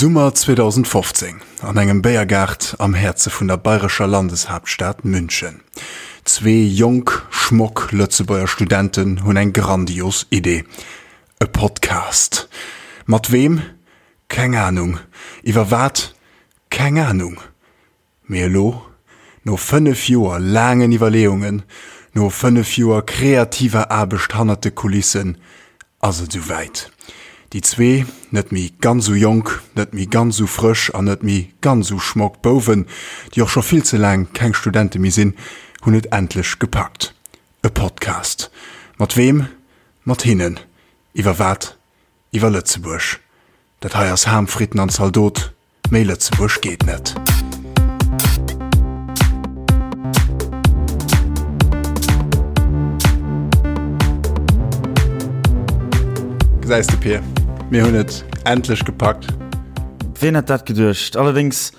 Summer 2015, an engem Béiergaart am Häerze vun der bayrescher Landeshaaptstad München. Zwee jonk, schmock Lëtzebuerger Studenten hunn eng grandios Idee, E Podcast. Mat weem? Keng Anung. Iwwer wat? Keng Anung. Mee elo, no 5 Joer laangen Iwwerleeungen, no 5 Joer kreativer Aarbecht hannert de Kulissen, ass et esou wäit. Déi zwee net méi ganz esou jonk, net méi ganz esou frësch an net méi ganz esou schmock Bouwen, déi och scho vill ze laang keng Studente méi sinn, hunn et endlech gepackt. E Podcast. Mat weem? Mat hinnen. Iwwer wat? Iwwer Lëtzebuerg. Dat hei ass Ham, Fritten an Zaldot. Méi Lëtzebuerg geet net. Gesäis de Pir, mir hunn et endlech gepackt. Ween hätt dat geduecht? Allerdéngs,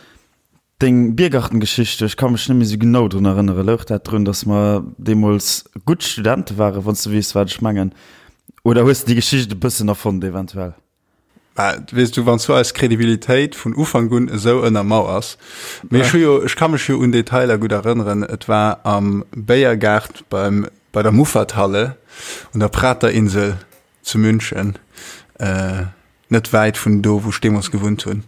deng Biergartengeschicht, ech ka mech net méi sou genau drun erënneren. Louch dat drun, datt mer deemools gutt Studente waren, wann s de weess, wat ech mengen? Oder hues de déi Geschicht e bëssen erfonnt eventuell? Mä weess du, wann s du eis Kredibilitéit vun Ufank un esou ënnermauers. Mee ech hu jo, ech ka mech jo un Detailer gutt erënneren. Et war am Béiergaart beim, bei der Muffathalle un der Praterinsel zu München, net wäit vun do, wou ech deemools gewunnt hunn.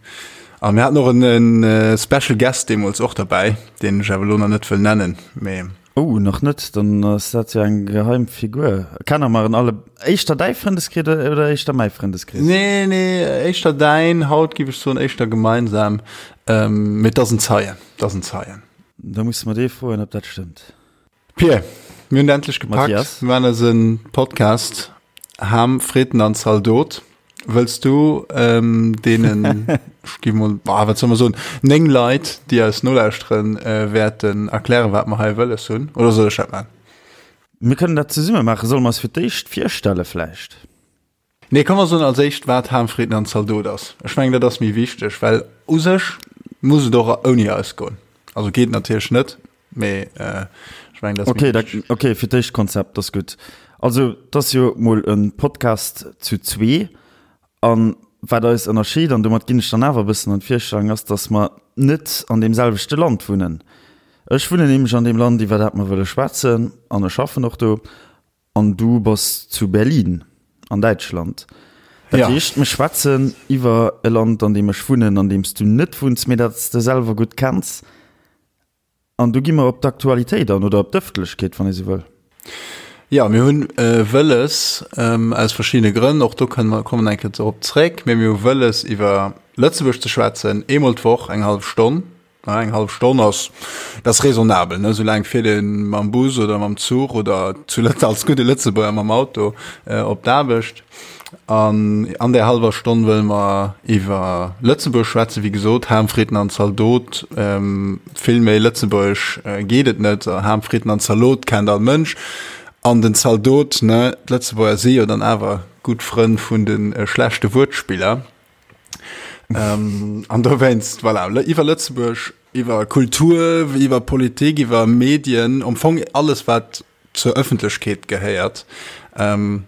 A mir haten och en Special Guest deemools och derbäi, deen ech awer elo nach net wëll nennen, mee. Oh, nach net? Dann ass dat jo eng geheim Figur. Kenne mer en alle? Éischter däi Frëndeskrees oder éischter mäi Frëndeskrees? Nee, nee, éischter däin. Haut giff ech soen éischter gemeinsam. Mee et ass en Zeien, et ass en Zeien. Da musse mer dee froen, ob dat stëmmt. Pir, mir hunn et endlech gepackt. Mathias. Mir maachen eise Podcast Ham, Fritten an Zaldot. Wëlls du ähm, deenen, ech gi mol, ah, wat soll mer soen, 9 Leit, déi eis nolauschteren, äh, wäerten erklären, wat mer hei wëlles hunn? Oder soll ech dat maachen? Mir kënnen dat zesumme maachen. Solle mer eis fir d'éischt virstelle vläicht? Nee, komm mer soen als éischt, wat Ham, Fritten an Zaldot ass. Ech mengen, dat ass méi wichteg, well u sech muss et och ouni eis goen. Also geet natierlech net, mee äh, ech mengen, dat ass méi wichteg. Okay, okay, fir d'éischt Konzept, dat ass gutt. Also, et ass jo mol e Podcast zu zwee. A wat eis ënnerscheet, an domat ginn ech dann awer e bëssen an d'Virstellung, ass, datt mer net an deem selwechte Land wunnen. Ech wunnen nämlech an deem Land, iwwer dat mer wëlle schwätzen, an ech schaffen och do. An du bass zu Berlin an Däitschland. Dat ja. heescht, mir schwätzen iwwer e Land, an deem ech wunnen, an deem s du net wunns, mee dat s de selwer gutt kenns. An du gi mer op d'Aktualitéit an oder op d'Ëffentlechkeet, wann ee sou wëll. Ja, mir hunn äh, wëlles ähm, aus verschiddene Grënn, och do kënnen mer kommen eng Kéier drop zréck, mee mir hu wëlles iwwer Lëtzebuerg ze schwätzen, eemol d'Woch eng hallef Stonn. Na, eng hallef Stonn ass, dat ass raisonnabel, ne? Soulaang fiert ee mam Bus oder mam Zuch oder zu Lëtz als gudde Lëtzebuerger mam Auto äh, op d'Aarbecht. An an där hallwer Stonn wëlle mer iwwer Lëtzebuerg schwätzen, wéi gesot, Ham, Fritten an Zaldot. Ähm, vill méi lëtzebuergesch äh, geet et net. Ham, Fritten an Zalot kennt all Mënsch. An den Zaldot, ne, d'Lëtzebuerger si jo dann awer gutt Frënn vun de äh, schlechte Wuertspiller. Ähm, an dowéinst, voilà, iwwer Lëtzebuerg, iwwer Kultur, iwwer Politik, iwwer Medien, am Fong alles, wat zur Ëffentlechkeet gehéiert, ähm,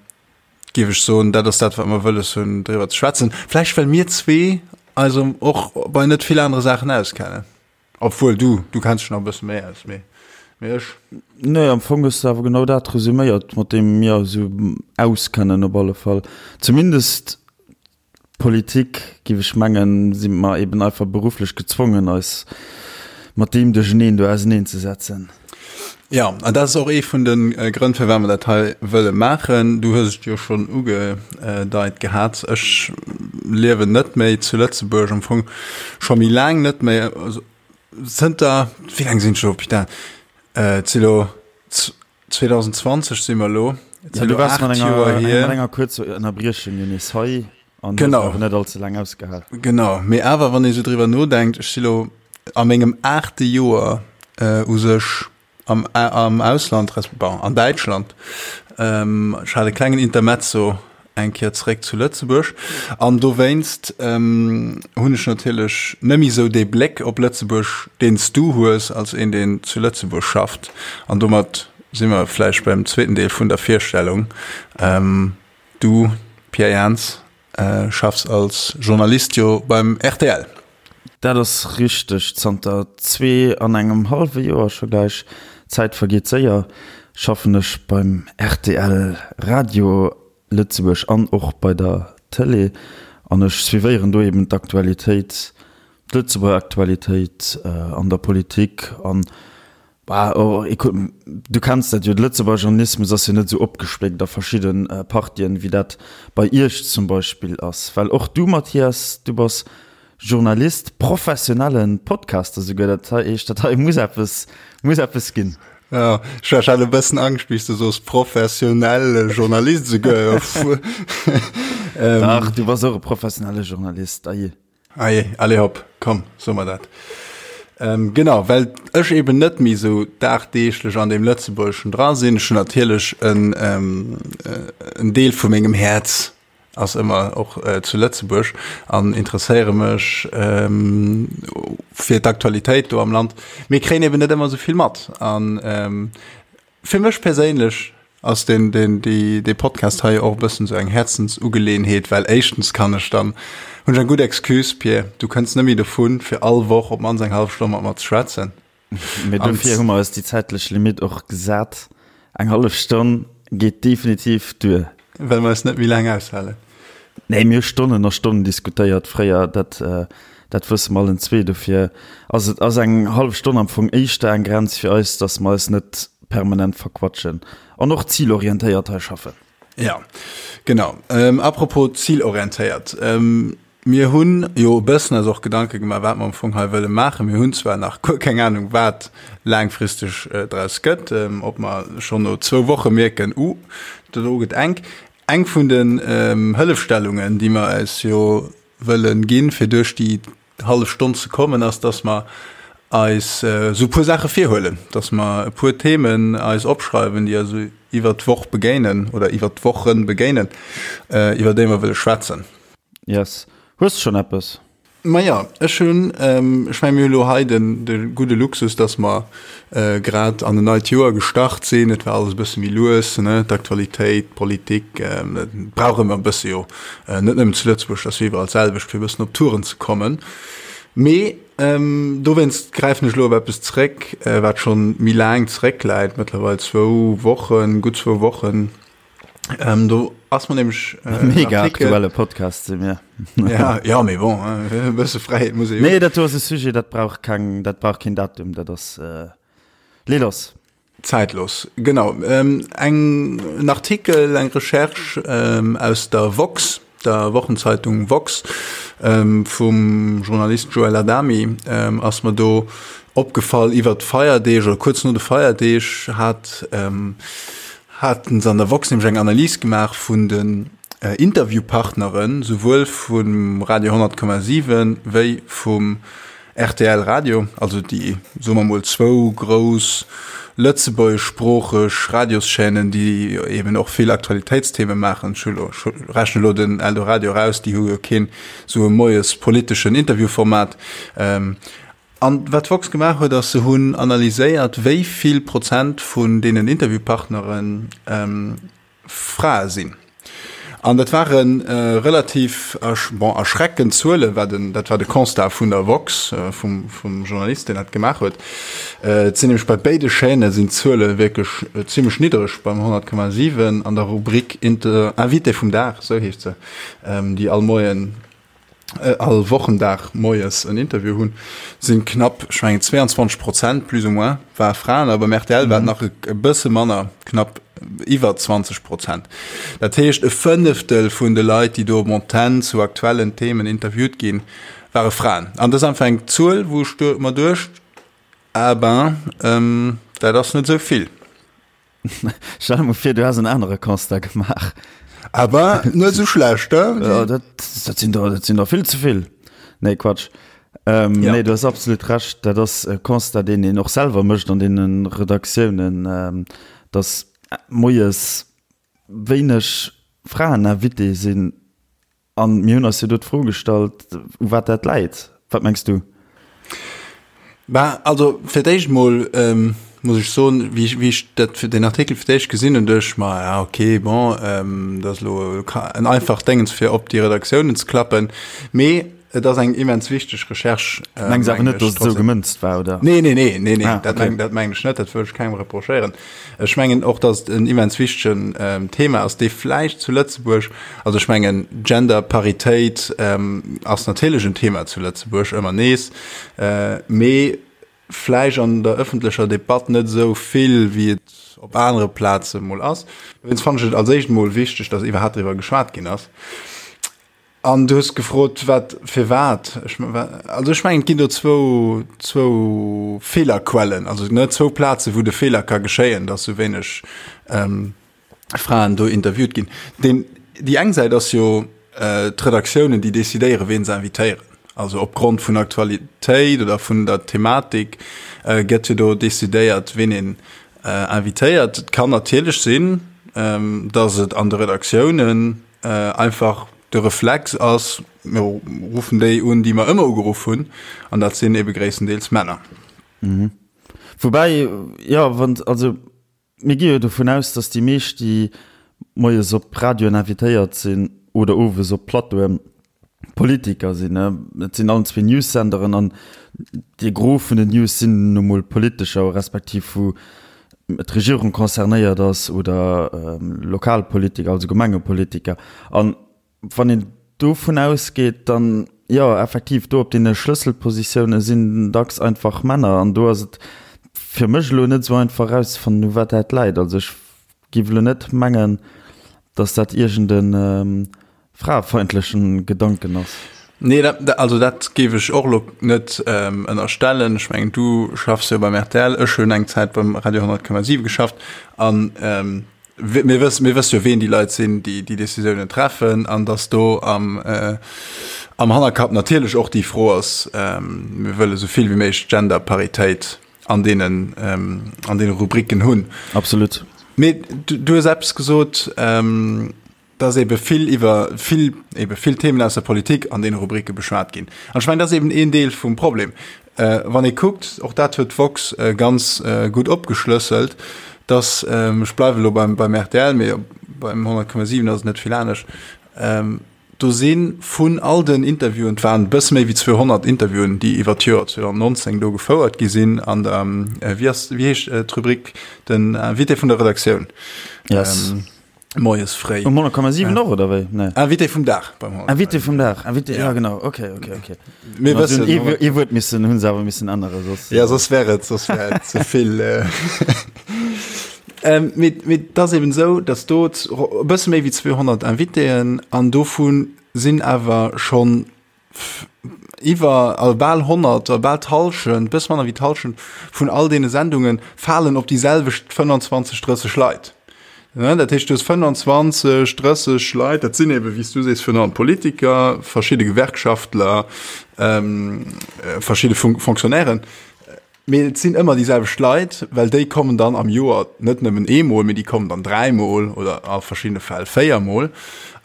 géif ech soen, dat ass dat, wat mer wëlles hunn, driwwer ze schwätzen. Vläicht well mir zwee eis och bei net vill anere Saachen auskennen. Obwuel du, du kenns dech nach e bësse méi aus, mee, mee ech. Nee, am Fong hues de awer genau dat resuméiert, mat deem mir eis esou auskennen op alle Fall. Zumindest Politik, giff ech mengen, si mer eben einfach berufflech gezwongen, eis mat deem Duercheneen do auseneen ze setzen. Jo, an dat ass och ee vun de Grënn, firwat mer dat hei wëlle maachen. Du hues et jo schonn ugedeit gehat, ech liewen net méi zu Lëtzebuerg, am Fong scho méi laang net méi, also zënter, wéi laang sinn ech elo, putain, et si lo 2020 si mer elo, et si elo 8 Joer hier. Mat enger kuerzer Ënnerbriechung jo nees hei an hues awer net allze laang ausgehal. Genau, mee awer wann ee sou driwwer nodenkt, ech si lo a mengem aachte Joer u sech am, am Ausland, resp. Bon, an Däitschland. Ech hat e klengen Intermezzo eng Kéier zeréck zu Lëtzebuerg an dowéinst hunn ech natierlech net méi esou dee Bléck op Lëtzebuerg, deen s du hues als een, deen zu Lëtzebuerg schafft. An domat si mer vläicht beim zweeten Deel vun der Virstellung. Du, Pierre Jans. Schaffs als Journalist jo beim rtl. Dat ass richteg. Zanter zwee an engem hallwe Joer scho gläich, d'Zäit vergeet séier, schaffen ech beim rtl Radio Lëtzebuerg an och bei der Tëlee an ech suivéieren do eben d'Aktualitéit, d'Lëtzebuerger Aktualitéit an der Politik an Bah, oh, écoute, du kenns dat jo, de Lëtzebuerger Journalismus ass jo net esou opgespléckt a verschidde Partien, wéi dat bei Iech zum Beispill ass. Well och du, Mathias, du bass Journalist, professionelle Podcaster souguer, dat heescht, dat hei muss eppes, muss eppes ginn. Jo, ech hat e bëssen Angscht, wéi s de soos, professionelle Journalist souguer. Dach, du bass och e professionelle Journalist, aje. Allez, allez hopp, komm, soe mer dat. Ähm, genau, well ech eben net méi sou dagdeeglech an deem Lëtzebuergeschen dra sinn. Ech hunn natierlech en, ähm, äh, en Deel vu mengem Häerz ass ëmmer och äh, zu Lëtzebuerg an interesséiere mech ähm, fir d'Aktualitéit do am Land. Mee kréien eben net ëmmer sou vill mat. An ähm, Fir mech perséinlech ass den, den, déi, dee Podcast hei och e bëssen esou eng Häerzensugeleeënheet, well éischtens kann ech dann, hunn ech eng gutt Excuse, Pir, du kënns net méi dovun, fir all Woch op d'mannst eng hallef Stonn mat mer ze schwätzen. Mee dofir hu mer eis déi zäitlech Limitt och gesat. Eng hallef Stonn geet definitiv duer. Well mer eis net méi laang aushalen. Nee, mir hu Stonnen a Stonnen diskutéiert fréier, dat, dat wësse mer allen zwee. Dofir ass et, ass eng hallef Stonn am Fong éischter eng Grenz fir eis, datt mer eis net permanent verquatschen an och zilorientéiert hei schaffen. Ja, genau. Ähm, apropos zilorientéiert. Ähm, mir hunn jo e bëssen eis och Gedanke gemaach, wat mer am Fong hei wëlle maachen. Mir hunn zwar nach guer keng Anung, wat laangfristeg äh, draus gëtt, ähm, ob mer schonn no zwou Woche mierken, uh, dat do gëtt enk. Eng vun den Hëllefstellungen, déi mer eis jo wëllen ginn, fir duerch déi hallef Stonn ze kommen, ass, dass mer eis esou e puer Saache virhuelen, dass mer e puer Themen eis opschreiwen, déi eis iwwert d'Woch begéinen oder iwwert d'Wochen begéinen, iwwer déi mer wëlle schwätzen. Yes. Hues de schonn eppes? Maja, ech hunn, ech mengen, mir hu lo hei den, de gudde Luxus, dass mer grad an en neit Joer gestart sinn. Et war alles e bësse méi lues, ne, d'Aktualitéit, d'Politik, dat brauch ëmmer e bësse jo, net nëmmen zu Lëtzebuerg, dat ass jo iwwerall d'selwecht, fir e bëssen op Touren ze kommen. Mee dowéinst gräifen ech elo op eppes zréck, wat schonn méi laang zeréckläit, mëttlerweil zwou Wochen, gutt zwou Wochen. Ähm, do ass mer nämlech äh, mega aktuelle Podcast si mir. ja, ja, mee bon, e bësse Fräiheet muss ee jo. Nee, dat do ass e Sujet, dat brauch keng, dat brauch keen Datum, dat ass äh, lee lass. Zäitlos, genau. Ähm, eng, en Artikel, eng Recherche ähm, aus der Woxx, der Wochenzeitung Woxx, ähm, vum Journalist Joël Adami, ähm, ass mer do opgefall iwwer d'Feierdeeg oder kuerz no de Feierdeeg hat, ähm, haten se an der Woxx nämlech eng Analys gemaach vun den Interviewpartneren, souwuel vum Radio 100,7 wéi vum rtl Radio, also déi, soe mer mol, zwou grouss lëtzebuergeschsproocheg Radioschaînen, déi eben och vill Aktualitéitstheme maachen. Ech hu lo, ech rechne lo den Eldoradio eraus, déi hu jo keen esou e moies politeschen Interviewformat. An wat d'Woxx gemaach huet, ass, se hunn analyséiert, wéi vill Prozent vun deenen Interviewpartnere Frae sinn. An dat ware relativ, bon, erschreckend Zuelen, war den, dat war de Constat vun der Woxx, vum, vum Journalist, deen dat gemaach huet. Et sinn nämlech bei béide Chaîne sinn d'Zuele wierklech zimmlech niddereg, beim 100,7 an der Rubrik Inter, Invité vum Dag, esou heescht se, déi all Moien, all Wochendag moies en Interview hunn, sinn knapp, ech mengen 22 Prozent plus ou moins war Fraen, a beim rtl war et nach e bësse manner, knapp iwwer 20 Prozent. Dat heescht e Fënneftel vun de Leit, déi do op Antenn zu aktuellen Themen interviewt ginn, ware Fraen. An dat ass einfach eng Zuel, wou ech mer duecht, ah ben, dat ass net esou vill. Stell der mol vir, du häss en anere Constat gemaach. Awer net esou schlecht, he? Ja, dat, dat sinn der, dat sinn der vill ze vill. Nee, Quatsch. Ähm, ja. Nee, du hast absolut recht. Dat ass e Constat, deen een och selwer mécht an deenen Redaktiounen, ähm, dass moies wéineg Fraeninvité sinn. An mir hunn eis jo do d'Fro gestallt, u wat dat läit. Wat mengs du? Bah, also fir d'éischt mol. muss ech soen, wéi ech, wéi ech dat fir den Artikel fir d'éischt gesinn hunn, duecht ech mer, ja okay, bon, dat ass elo en einfacht Déngens fir op déi Redaktiounen ze klappen. Mee et ass eng immens wichteg Recherche. Mengs awer net, datt et esou gemënzt war, oder? Nee, nee, nee, nee, nee, ah, dat okay. dat mengen ech net, dat wëll ech kengem reprochéieren. Ech mengen och, datt et en immens wichtegen ähm, Thema ass, dee vläicht zu Lëtzebuerg, also ech mengen Genderparitéit ähm, ass natierlech en Thema zu Lëtzebuerg ëmmer nees, äh, mee vläicht an der ëffentlecher Debatt net esou vill, wéi et op anere Plaze mol ass. Dowéinst fannen ech et als éischt mol wichteg, datt iwwerhaapt driwwer geschwat ginn ass. An du hues gefrot, wat, firwat. Ech, also ech mengen, et ginn do zwou, zwou Feelerquellen, also ne, zwou Plaze wou de Feeler ka geschéien, datt esou wéineg ähm, Fraen do interviewt ginn. Den, déi eng Säit ass jo äh, d'Redaktiounen, déi decidéieren, ween se invitéieren. Also opgrond vun Aktualitéit oder vun der Thematik äh, gëtt jo do decidéiert, ween een äh, invitéiert. Et kann natierlech sinn, ähm, datt et an de Redaktiounen äh, einfach de Reflex ass, mir ruffen déi un, déi mer ëmmer ugeruff hunn, an dat sinn ebe gréisstendeels Männer. Mhm. Woubäi, jo, wann, also mir gi jo dovun aus, datt déi meescht, déi moies op Radioen invitéiert sinn oder owes op Plateauen, Politiker sinn. Et sinn allen zwee News-Senderen an de Gros vun den News sinn nu mol politescher, respektiv wou d'Regierung concernéiert ass oder Lokalpolitiker, also Gemengepolitiker. An wann een dovun ausgeet, dann, jo, effektiv, do op deene Schlësselpositioune sinn dacks einfach Männer. An do ass et fir mech elo net esou einfach erauszefannen, u wat dat läit. Also ech géif elo net mengen, datt dat iergend e fraefeindlechen Gedanken ass. Nee, dat, also dat géif ech och elo net ënnerstellen. Ech mengen, du schaffs jo beim rtl, ech hunn eng Zäit beim Radio 100,7 geschafft an mir wëssen, mir wësse jo, ween déi Leit sinn, déi déi Decisiounen treffen an datt do am, am Hannerkapp natierlech och déi Fro ass, mir wëlle sou vill wéi méiglech Genderparitéit an deenen, an deene Rubriken hunn. Absolut. Mee du, du hues eppes gesot, dass ebe vill iwwer vill, ebe vill Themen aus der Politik an deene Rubrike beschwat ginn. An ech mengen, dat ass eben een Deel vum Problem. Wann ee kuckt, och dat huet d'woxx ganz gutt opgeschlësselt, dass, ech bleiwe elo beim, beim rtl, mee beim 100,7 ass et net vill anescht, do si vun all den Interviewen, et waren e bësse méi wéi 200 Interviewen, déi iwwer d'Joer 2019 do gefouert gi sinn an der, wéi ass, wéi heescht d'Rubrik, den Invité vun der Redaktioun. Yes. Moies fréi. Um 100,7 och, oder wéi? Nee. Invité vum Dag beim 100,7. Invité vum Dag, Invité, ja, ja genau, okay, okay, okay. Mir wëssen. Ee, ee Wuert missen, hunn se awer missen änneren, soss. Ja, soss wär et, soss wär et ze vill. Ähm, mee, mee et ass eben esou, dass do e bësse méi wéi 200 Invitéen an dovu sinn awer schonn Iwwer, also bal 100, oder bal d'Hallschent, bësse manner wéi d'Hallschent vun all deene Sendunge falen op déi selwecht 25, 30 Leit. Ne, dat heescht, du hues 25, 30 Leit, dat sinn ebe wéi s du sees, virun allem Politiker, verschidde Gewerkschaftler, verschidde Fonctionnairen. Mee et sinn ëmmer déi selwecht Leit, well déi kommen dann am Joer net nëmmen eemol, mee déi kommen dann dräimol oder a verschiddene Fäll véiermol.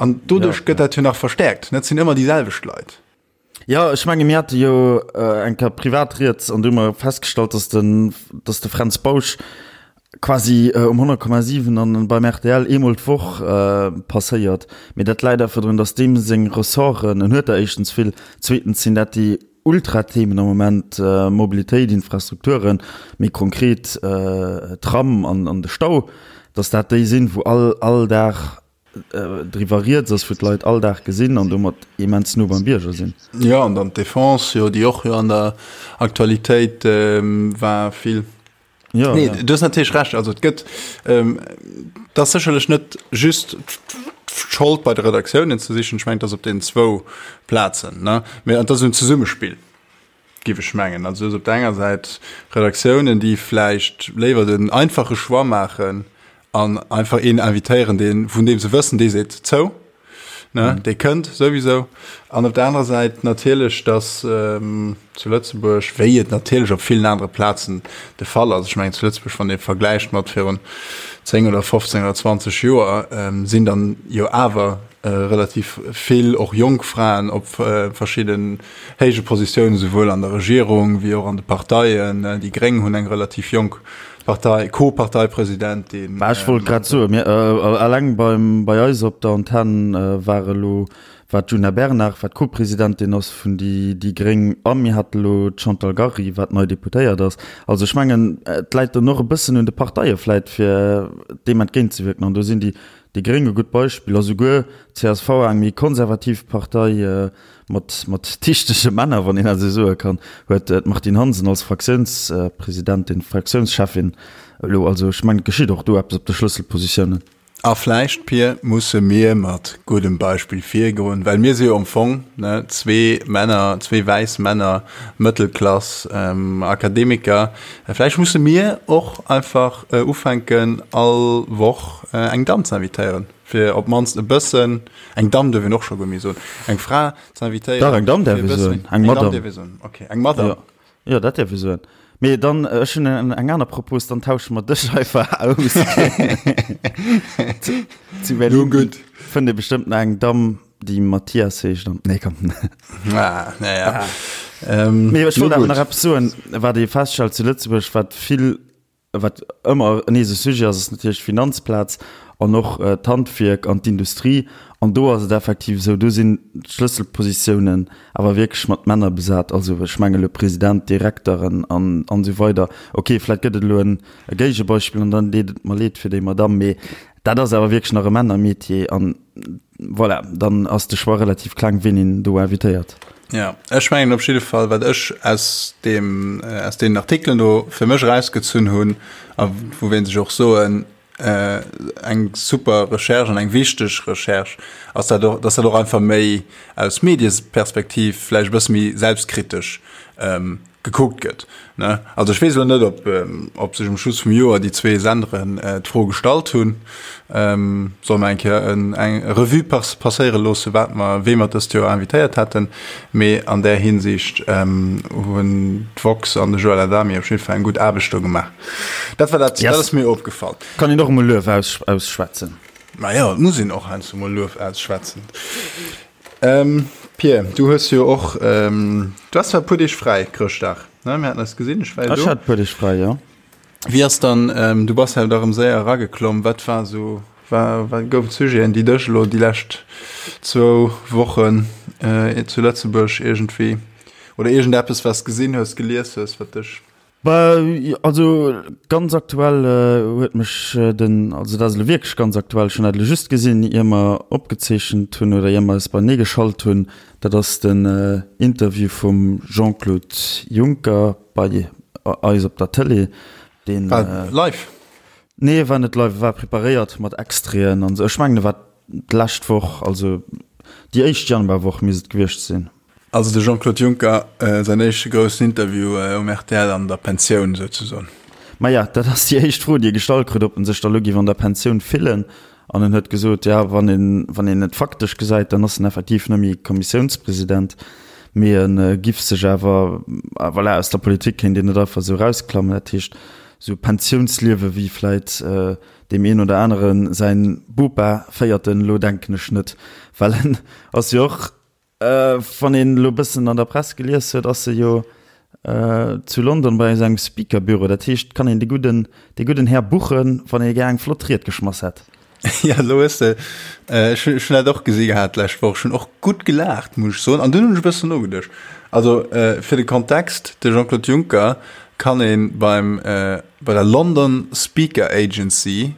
An doduerch gëtt dat jo nach verstäerkt. Et sinn ëmmer déi selwecht Leit. Jo, ech menge mir hate jo eng Kéier privat rieds an du hu mer festgestallt, datt den, datt de Fränz Bausch quasi um 100,7 an beim rtl eemol d'Woch passéiert. Mee dat läit einfach drun, datt deem seng Ressorten, en huet der éischtens vill, zweetens sinn dat déi Ultra-Themen am Moment, Mobilitéit, Infrastrukturen, méi konkret Tram an de Stau, datt dat déi sinn, wou all all Dag driwwer rieds ass, wou d'Leit all Dag gesinn an domat immens no beim Bierger sinn. Jo, an dann d'Defense, jo, déi och jo an der Aktualitéit war vill. Ja, nee, ja. Du hues natierlech Recht. Also et gëtt ähm, dat ass sécherlech net just d'Schold bei de Redaktiounen ze sichen. Ech mengen, dat ass op den zwou Plazen. Ne? Mee dat ass en Zesummespill, géif ech mengen. Also du hues op der enger Säit Redaktiounen, déi vläicht léiwer den einfache Choix maachen an einfach een invitéieren, deen, vun deem se wëssen, dee seet zou. Ne, mm. Dee kënnt souwisou. An op der anerer Säit natierlech, dass ähm, zu Lëtzebuerg, wéi et natierlech op villen anere Plazen de Fall ass, ech mengen zu Lëtzebuerg, wann ee vergläicht mat virun 10 oder 15 oder 20 Joer, ähm, sinn dann jo awer äh, relativ vill och jonk Fraen op äh, verschidden héije Positiounen, souwuel an der Regierung wéi och an de Parteien. Äh, déi Gréng hunn eng relativ jonk. Partei, Co-Parteipresidentin. Bah, ech wollt grad soen, mir, eleng beim, bei eis op der Antenn war elo, war d'Djuna Bernard, wat Co-Presidentin ass vun déi, déi gréng, a mir hate elo d'Chantal Gary, wat nei Deputéiert ass. Also ech mengen, et läit dann och e bëssen un de Parteie vläit, fir deem entgéintzewierken. An do sinn déi, déi gréng e gutt Beispill a souguer d'CSV, eng méi konservativ Partei, Mat, mat dichtege Männer, wann een dat esou soe kann, huet d'Martine Hansen als Fraktiounspresidentin, Fraktiounscheffin elo. Also ech mengen, et geschitt och do eppes op de Schlësselpositiounen. A vläicht, Pir, musse mir mat guddem Beispill virgoen, well mir si jo am Fong, ne, zwee Männer, zwee wäiss Männer, Mëttelklass, Akademiker. Vläicht musse mir och einfach ufänken, all Woch eng Damm ze invitéieren. Fir op d'mannst e bëssen, eng Damm duerf een och scho guer méi soen, eng Fra ze invitéieren. Dach, eng Damm däerf ee soen, eng Madame. Eng Damm däerf ee soen, okay, eng Madame. Jo, jo, dat däerf ee soen. Mee dann, ech hunn eng aner Propos, dann tausche mer dech einfach aus. Zu Berlin fënnt ee bestëmmt nach eng Damm, déi Mathias heescht an, nee, komm. Ah, naja. Mee ech wollt awer nach eppes soen, wat ee feststellt zu Lëtzebuerg, wat vill Wat ëmmer nees e Sujet ass, ass natierlech d'Finanzplaz an och d'Handwierk an d'Industrie. An do ass et effektiv esou, do sinn d'Schlësselpositiounen awer wierklech mat Männer besat. Also ech menge elo President, Direkteren an esou weider. Okay, vläicht gëtt et elo e Géigebeispill an dann deet et mer leed fir déi Madamm, mee dat ass awer wierklech nach e Männermetier. An voilà, dann ass de Choix relativ kleng, wien een do invitéiert. Ja, ech mengen op jidde Fall, wat ech aus deem, aus deenen Artikelen do fir mech erausgezunn hunn a wou wéinst ech och soen, eng super Recherche an eng wichteg Recherche, ass dat och, dass dat och einfach méi aus Medieperspektiv vläicht e bësse méi selbstkritesch gekuckt gëtt, ne? Also ech weess elo net, ob, ob sech um Schluss vum Joer déi zwee Senderen d'Fro gestallt hunn, solle mer eng Kéier en, eng Revue passéiere loosse, wat mer, wee mer dëst Joer invitéiert hätten. Mee an där Hinsicht hunn d'Woxx an de Joël Adami op jidde Fall eng gutt Aarbecht do gemaach. Dat war dat, dat ass mir opgefall. Kann een och emol Luef ausschwätzen. Majo, et muss een och heiansdo mol Luef ausschwätzen. Pir, du hues jo och, du has zwar e puer Deeg fräi, Chrëschtdag, ne? Mir haten eis gesinn, ech war jo do. Ech hat e puer Deeg fräi, jo. Wéi ass dann, du bass jo da rëm séier erageklomm, wat war esou, war, wat goufen d'Sujeten, déi dech elo déi lescht zwou Wochen zu Lëtzebuerg iergendwéi, oder iergendeppes, wat s gesinn hues, gelies hues, wat dech. Bah, also ganz aktuell huet mech den, also dat ass elo wierklech ganz aktuell, ech hunn dat elo just gesinn, ier mer opgezeechent hunn oder ier mer eis beienee geschalt hunn, dat ass den Interview vum Jean-Claude Juncker bei eis op der Tëlee, deen. War live? Nee, e war net live, e war preparéiert mat Extraiten an esou. Ech mengen, e war d'lescht Woch, also déi éischt Januarwoch misst et gewiescht sinn. Also de Jean-Claude Juncker, säin éischte groussen Interview um rtl an der Pensioun souzesoen. Maja, dat ass déi éischt Fro, déi e gestallt krut, ob en sech da lo géif an der Pensioun fillen. An en huet gesot, ja, wann een, wann een et faktesch gesäit, dann ass en effektiv net méi Kommissiounspresident, mee e giff sech awer, voilà, aus der Politik kéint een net einfach esou erausklammen. Dat heescht, esou Pensiounsliewe wéi vläit deem een oder anere säin Bopa féiert en elo, denken ech net, well en ass jo och, Wann een elo bëssen an der Press gelies huet, ass e jo zu London bei esou engem Speaker-Büro. Dat heescht, kann een de gudden, de gudden Här buchen, wann ee gär eng flott Ried geschmass hätt. Ja, elo hues de, ech hunn dat och gesi gehat d'lescht Woch, ech hunn och gutt gelaacht, muss ech soen, an dunn hunn ech e bëssen nogeduecht. Also fir de Kontext, de Jean-Claude Juncker kann ee beim, bei der London Speaker Agency,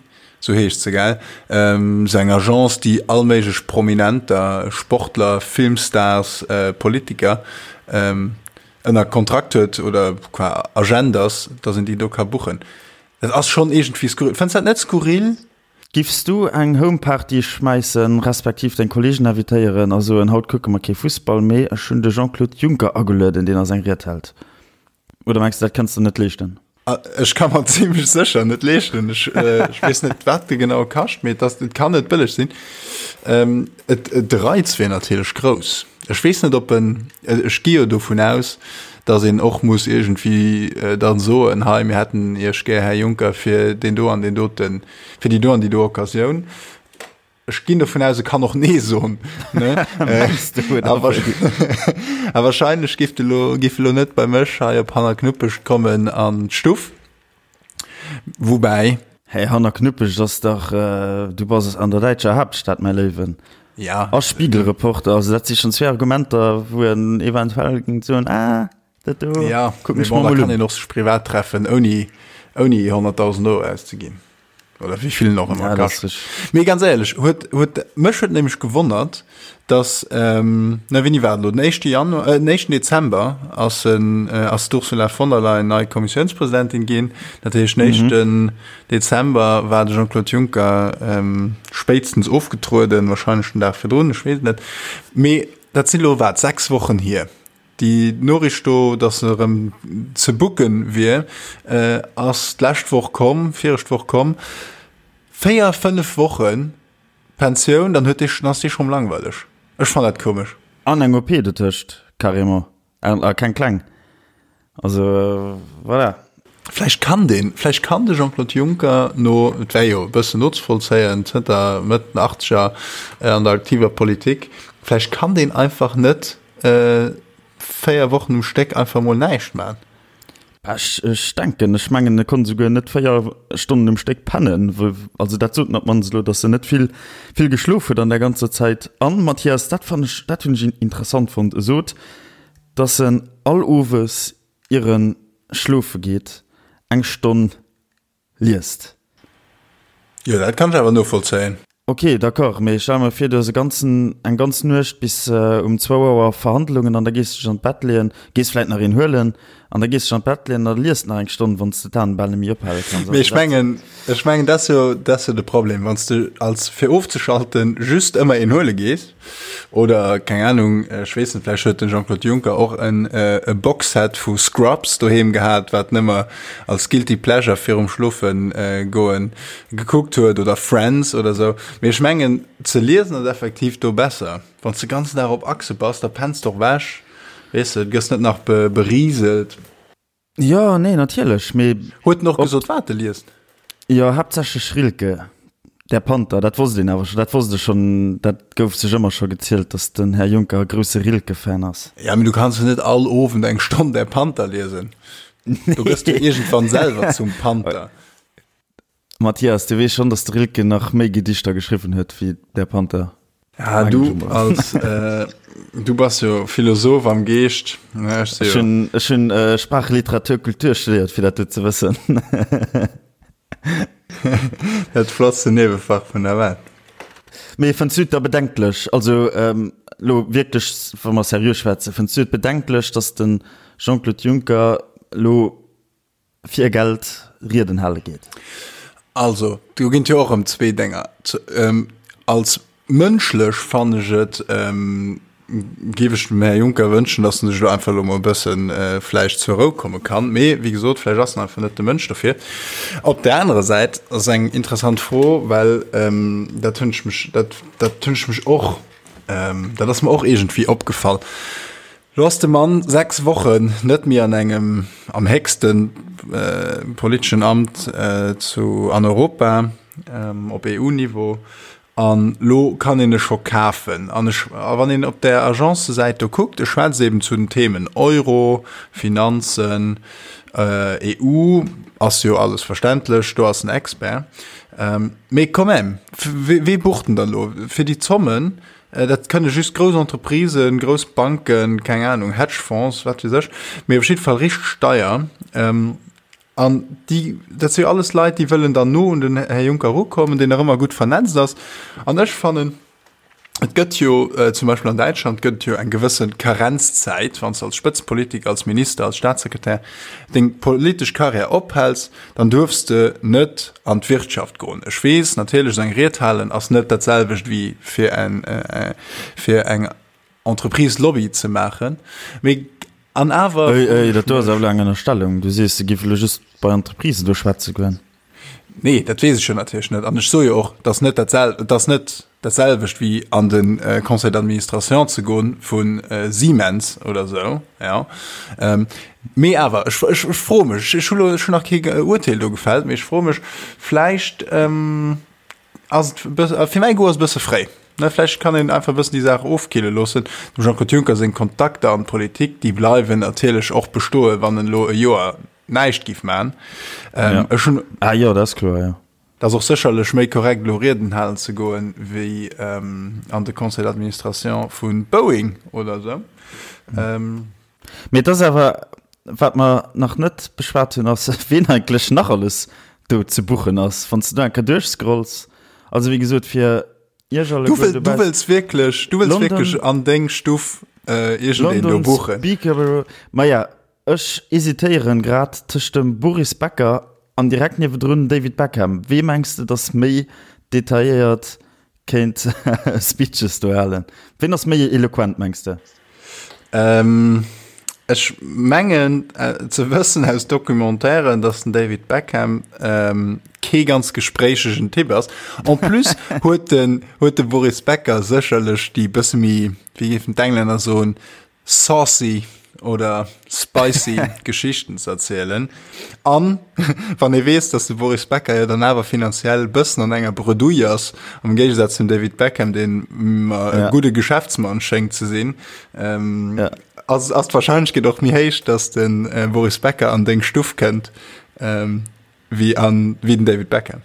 Sou heescht se, gell? Sou eng Agence, déi all méiglech Prominenter, Sportler, Filmstars, Politiker ënner Kontrakt huet oder qua Agent ass, dass een déi do ka buchen. Dat ass schonn iergendwéi skurril. Fënns dat net skurril? Giffs du eng Homeparty schmäissen, respektiv deng Kollegen invitéieren a soen, haut kucke mer kee Fussball, mee ech hunn de Jean-Claude Juncker agelueden, deen eis eng Ried hält? Oder mengs du, dat kënns de net leeschten? Ech ka mer zimmlech sécher net leeschten. Ech, äh, ech weess net, wat de genau kascht, mee et ass, et kann net bëlleg sinn. Ähm, et, et, de Reiz wier natierlech grouss. Ech weess net, ob en, ech gi jo dovun aus, datt een och muss iergendwéi äh, dann soen, hei, mir hätten Iech gär, Här Juncker, fir deen do an deen doten, fir déi do an déi do Occasioun. Ech ginn dovun aus, e kann och Nee soen. Ne? A wahrscheinlech giff de lo, giff elo net bei mech hei op Hannerknuppecht kommen an d'Stuff. Woubäi. Hey, hanner Knuppeg ass dach, du bass an der däitscher Haaptstad, mäi Léiwen. Ja. A Spiegelreporter, also dat si schonn zwee Argumenter, wou en eventuell géing soen, ah, dat do ja, kucken ech mer mol un. Kann een och sech privat treffen, ouni, ouni 100.000 Euro auszeginn. Oder wéi vill en och ëmmer ja, kascht. Mee ganz éierlech, huet, huet, mech huet nämlech gewonnert, dass, ähm, na wéini war et elo, den éischte Januar, äh, den éischten Dezember ass en, äh, ass d'Ursula von der Leyen nei Kommissiounspresidentin ginn. Dat heescht, den éischten mhm. Dezember war de Jean-Claude Juncker ähm, spéitstens ofgetrueden, wahrscheinlech den Dag virdrun, ech weess et net. Mee dat sinn elo wat, 6 Wochen hier. Déi Noriicht do, datt se erëm ze booken wier, ass d'lescht Woch komm, viregt Woch komm. 4, 5 Wochen Pensioun, dann huet dee, dann ass dee schonn langweileg. Ech fannen dat komesch. An eng OP dotëscht, carrément. A keng kleng. Also voilà. Vläicht kann deen, vläicht kann de Jean-Claude Juncker no, et wär jo e bëssen nozevollzéien, zënter Mëtt den Achtzeger an der aktiver Politik, vläicht kann deen einfach net 4 Wochen um Stéck einfach mol näischt man. Ech, ech denken, ech mengen, e konnt esouguer net 4 Stonnen um Stéck pennen. Also dat sot en op d'mannst elo, datt en net vill, vill geschlof huet an där ganzer Zäit. An, Mathias, dat fannen ech, dat hunn ech interessant fonnt, e sot, datt en all Owes ier en schlofe geet, eng Stonn liest. Jo, dat kann ech awer novollzéien. Ok, d'accord, mee stell mer vir, du hues e ganzen, eng ganz Nuecht bis um zwou Auer Verhandlungen an da gees du dech an d'Bett leeën, gees vläit nach een huelen an da gees du dech an d'Bett leeën an da liest nach eng Stonn, wann s de d'Aen bal net méi ophale kanns. Mee ech mengen, ech mengen, dat ass jo, dat ass jo de Problem, wann s de als fir ofzeschalten just ëmmer een huele gees, Oder, keng Ahnung, ech weess net, vläicht huet den Jean-Claude Juncker och en e Boxset vu Scrubs doheem gehat, wat en ëmmer als guilty pleasure virum Schlofen goen gekuckt huet, oder Friends oder sou. Mee ech mengen, ze liesen ass effektiv do besser. Wann s de ganzen Dag op Achse bass, da penns de och ewech, weess de, gëss net nach beriselt. Jo, nee, natierlech, mee. Huet en och gesot, wat e liest? Jo, haaptsächlech Rilke, Der Panther, dat wosst een awer scho, dat wosst ech schonn, dat gouf sech ëmmer scho gezielt, datt den Här Juncker e grousse Rilke-Fan ass. Ja, mee du kanns jo net all Owend eng Stonn Der Panther liesen. Do gëss du iergendwann selwer zum Panther. Mathias, du weess schonn, datt de Rilke nach méi Gedichter geschriwwen huet wéi Der Panther. Ja, du als äh, du bass jo Philosoph am Geescht. Ne, ech si jo. Ech hunn äh, Sprach, Literatur, Kultur studéiert, fir dat do ze wëssen. Dat flottste Niewefach vun der Welt. Mee fënns du et da bedenklech, also ähm, lo wierklech, wa mer seriö schwätzen, fënns du et bedenklech, datt de Jean-Claude Juncker lo fir Geld Rieden hale geet? Also, do ginn et jo och erëm zwee Dénger. Als mënschlech fannen ech et, géif ech dem Här Juncker wënschen, datt en sech elo einfach elo mol e bësse vläicht zur Rou komme kann. Mee wéi gesot, vläicht ass en einfach net de Mënsch dofir. Op där anerer Säit ass eng interessant Fro, well dat hunn ech mech, dat, dat hunn ech mech och, dat ass mer och iergendwéi opgefall, Lo ass de Mann 6 Wochen net méi an engem am héchste politeschen Amt zu an Europa op EU-Niveau an lo kann een e scho kafen. An ech a wann een op där Agence-Säit do kuckt, e schwätzt eben zu den Themen Euro, Finanzen, EU, ass jo alles verständlech, do ass en Expert. Mee quand même, wee bucht en dann elo fir déi Zommen? Dat kënne just grouss Entreprisen, grouss Banken, keng Ahnung, Hedgefonds, wat weess ech, mee op jidde Fall richteg deier. An déi, dat si jo alles Leit, déi wëllen dann no un den Här Juncker erukommen, deen nach ëmmer gutt vernetzt ass. An ech fannen, et gëtt jo zum Beispill an Däitschland gëtt et jo eng gewësse Karenzzäit, wann s de als Spëtzepolitiker, als Minister, als Staatssekretär deng politesch Karriär ophäls, dann duerfs de net an d'Wirtschaft goen. Ech weess natierlech, esou eng Ried halen ass net dat selwecht wéi fir en fir eng Entreprise Lobby ze maachen, mee an awer. Éi, éi, dat do ass awer elo eng Ënnerstellung. Du sees, se géif elo just bei Entreprisen do schwätze goen. Nee, dat weess ech jo natierlech net. An ech soe jo och, dass net dat sel dass net dat selwecht wéi an de Conseil d'administration ze goen vu Siemens oder esou, jo. Mee awer, ech ech ech froe mech, ech hu lo ech hunn nach kee Urteel do gefällt, mee ech froe mech, vläicht ass et e bësse, fir mäi Goût ass e bësse fréi, ne? Vläicht kann een einfach e bëssen déi Saach ofkille loossen. Dem Jean-Claude Juncker seng Kontakter an d'Politik, déi bleiwen natierlech och bestoen, wann en elo e Joer. näischt giff man. Ähm, ja. Ech hunn, ah, jo, dat ass kloer, jo. Dat ass och sécherlech méi korrekt elo Rieden halen ze goen, wéi ähm, an de Conseil d'administration vu Boeing oder esou. Ähm, Mee et ass awer, wat mer nach net beschwat hunn, ass, ween eigentlech nach alles do ze buchen ass, wann s de do eng Kéier duerchscrolls. Also wéi gesot, fir Iech Du, alleguer wëll, du dobaussen. wëlls wierklech, du wëlls London, wierklech an deng Stuff äh, iergendeen do London buchen. Speaker Bureau. Maja, ech hesitéieren grad tëscht dem Boris Becker an direkt niewedrun David Beckham. Wee mengs de, dass méi detailléiert kéint Speeches do halen? Ween ass méi eloquent, mengs de? Ähm, ech mengen ze wëssen aus Documentairen, dass den David Beckham ähm, kee ganz gespréichegen Typ ass. En plus huet den, huet de Boris Becker sécherlech déi bësse méi, wéi géifen d'Englänner soen, saucy oder spicy Geschichten ze erzielen. An wann ee weess, dass de Boris Becker jo dann awer finanziell bëssen an enger Bredouille ass, am Géigesaz zum David Beckham, deen mer e Ja. gudde Geschäftsmann schéngt ze sinn, ähm, Ja. ass, ass d'Wahrscheinlechkeet och méi héich, dass de äh, Boris Becker an deng Stuff kënnt, ähm, wéi an, wéi den David Beckham.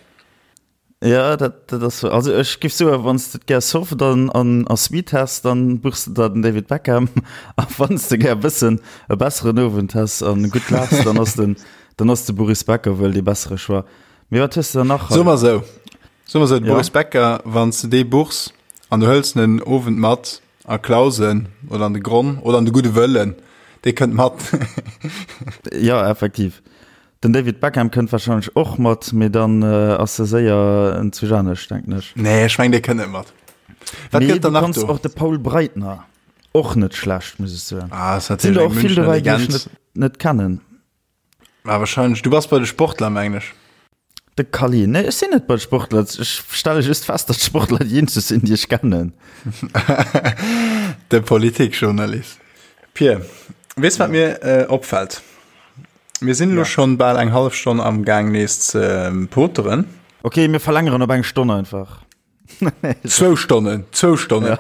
Ja, dat, dat ass so. Also ech giff soen, wann s de et gär soft an, an, a sweet häss, dann buchs de der den David Beckham. A wann s de gär e bëssen e besseren Owend häss an gutt laachs, dann ass den, dann ass de Boris Becker wuel dee bessere Choix. Mee wat hues de dann nach Soe hei? mer esou, soe mer esou, de Ja. Boris Becker, wann s de dee buchs an du hëls en en Owend mat a Clausen oder an de Gronn oder an de Gudde Wëllen, dee kënnt mat. Ja, effektiv. Den David Beckham kënnt wahrscheinlech och mat, mee dann ass e séier en zu anescht, denken ech. Nee, ech meng dee kënnt net mat. Wat Mee gëtt du dann nach kanns do? och de Paul Breitner, och net schlecht, muss ech soen. Ah, ass Sinn natierlech der eng och vill Münchner dobäi, déi ech Legend. net, net kennen. Ah, wahrscheinlech. Du bass bei de Sportler, mengen ech. De Kally, Nee, ech sinn net bei de Sportler. Ech stelle just fest, datt d'Sportler déi eenzeg sinn, déi ech kennen. De Politikjournalist. Pir, weess wat mir opfält? Mir sinn elo schonn bal eng hallef Stonn am Gaang nees ze poteren. Ok, mir verlängeren op eng Stonn einfach. Zwou Stonnen, zwou Stonnen. Ja.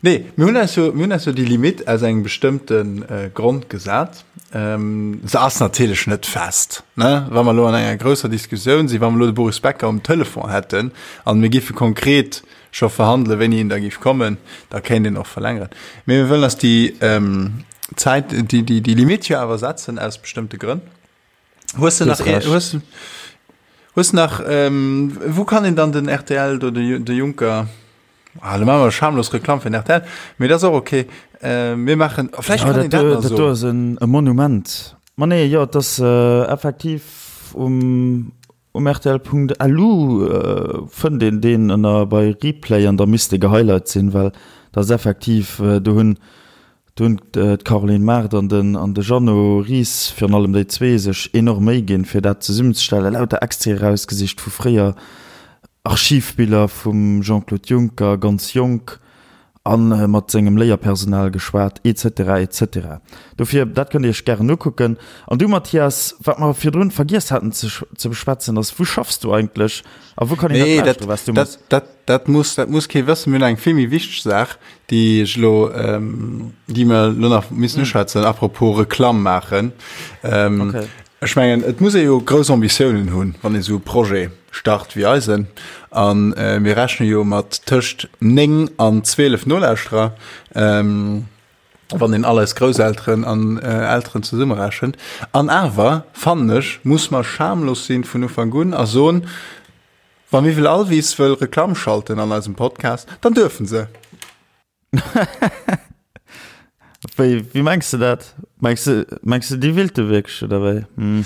Nee, mir hunn eis jo, mir hunn eis jo déi Limite aus engem bestëmmte äh, Grond gesat. Ähm, se ass natierlech net fest, ne? Wa mer elo an enger grousser Diskussioun sinn, wa mer elo de Boris Becker um Telefon hätten an mir giffe konkret scho verhandelen, wéini en da giff kommen, da kéint een och verlängeren. Mee mir wëllen eis déi ähm, Zäit, déi, déi, déi Limite jo awer setzen aus bestëmmte Grënn. Hues du nach, hues, hues nach, ähm, wou kann een dann den RTL do, de, de Juncker, ah, da maache mer schamlos Reklamm fir den RTL, mee dat ass och okay. Äh, mir maachen, vläicht Ja, kann een dat dat do, nach dat do soen. ass en, e Monument. Ma nee, jo, et ass äh, effektiv um, um rtl.lu äh, fënnt een deen ënner bei Replay an da misst e gehighlight sinn, well dat ass effektiv, äh, do hunn Do hunn d'Caroline Mart an den an de Jeannot Ries, virun allem déi zwee, sech enorm Méi ginn, fir dat zesummenzestellen. Lauter Extraite erausgesicht vu fréier, Archivbiller vum Jean-Claude Juncker, ganz jonk, a mat sengem Léierpersonal geschwat, etc. Etc. Dofir, dat kënnt Dir Iech gären ukucken. An du, Mathias, wat mer virdrun vergiess haten ze ze beschwätzen, ass, Wou schaffs du eigentlech a wou kann een dat Nee, dat, lauschteren, wat s du dat, méchs? dat, dat muss, dat muss kee wëssen. Mir hunn eng vill méi wichteg Saach, déi ech elo, déi mer elo nach missen uschwätzen, apropos Reklamm maachen. Okay. Ech mengen, et muss ee jo grouss Ambitiounen hunn, wann ee sou e Projet start wéi eisen. A mir rechne jo mat tëscht 9 an 12 Nolauschterer, wann een all eis Grousselteren an Elteren zesummerechent. An awer, fannen ech, muss mer schamlos sinn vun Ufank un a soen, Wa Miwwel Alvis wëll Reklamm schalten an eisem Podcast, dann duerfen se! Wéi, wéi mengs de dat? Mengs de, mengs de déi willte wierklech oder wéi? Hm.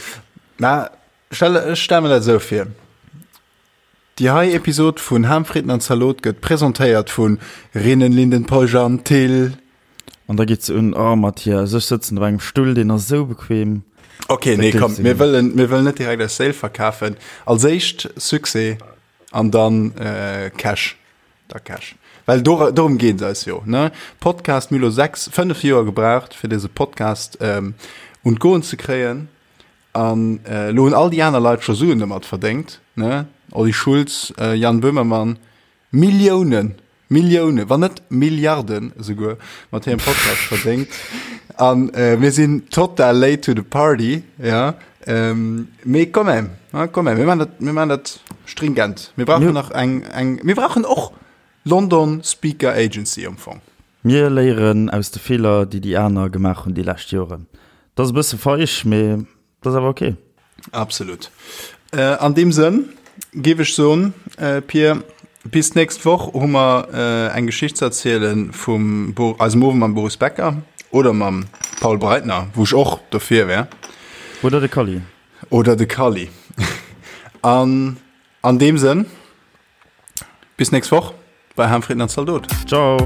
Na, stell, ech stelle mir dat esou vir. Déi hei Episod vun Ham, Fritten an Zalot gëtt presentéiert vu Rinnen, Linden, Peugeot an Thill. An da geet se un, Oh Mathias, ech sëtzen op engem Stull, deen ass esou bequem. Ok, nee, komm, mir wëllen, mir wëllen net direkt eis Séil verkafen. Als éischt Succès an dann Cash. Da Cash. Well do, dorëm geet et eis jo, ne? Podcast, mir hu lo 6, 5 Joer gebraucht, fir dëse Podcast un d'Goen ze kréien. An elo hunn all déi aner Leit scho Suen domat verdéngt, ne? Olli Schulz, Jan Böhmermann, Milliounen! Milliounen, wann net Milliarden esouguer mat hirem Podcast verdéngt. An äh, mir sinn total late to the party, ja. Ähm, mee quand même, ja, quand même, mir maachen dat, mir maachen dat stringent. Mir brauchen nach eng, eng, mir brauchen och London Speaker Agency am Fong. Mir léieren aus de Feeler, déi déi aner gemaach hunn déi lescht Joren. Dat ass e bësse feig, mee dat ass awer ok. Absolut. An deem Sënn géif ech soen, Pir, bis d'nächst Woch hu mer eng Geschicht ze erziele vum eisem Owend mam Boris Becker oder mam Paul Breitner, wou ech och dofir wär. Oder de Kalli. Oder de Kalli. An an deem Sënn, bis d'nächst Woch bei Harmfrieden an Zaldot. Ciao.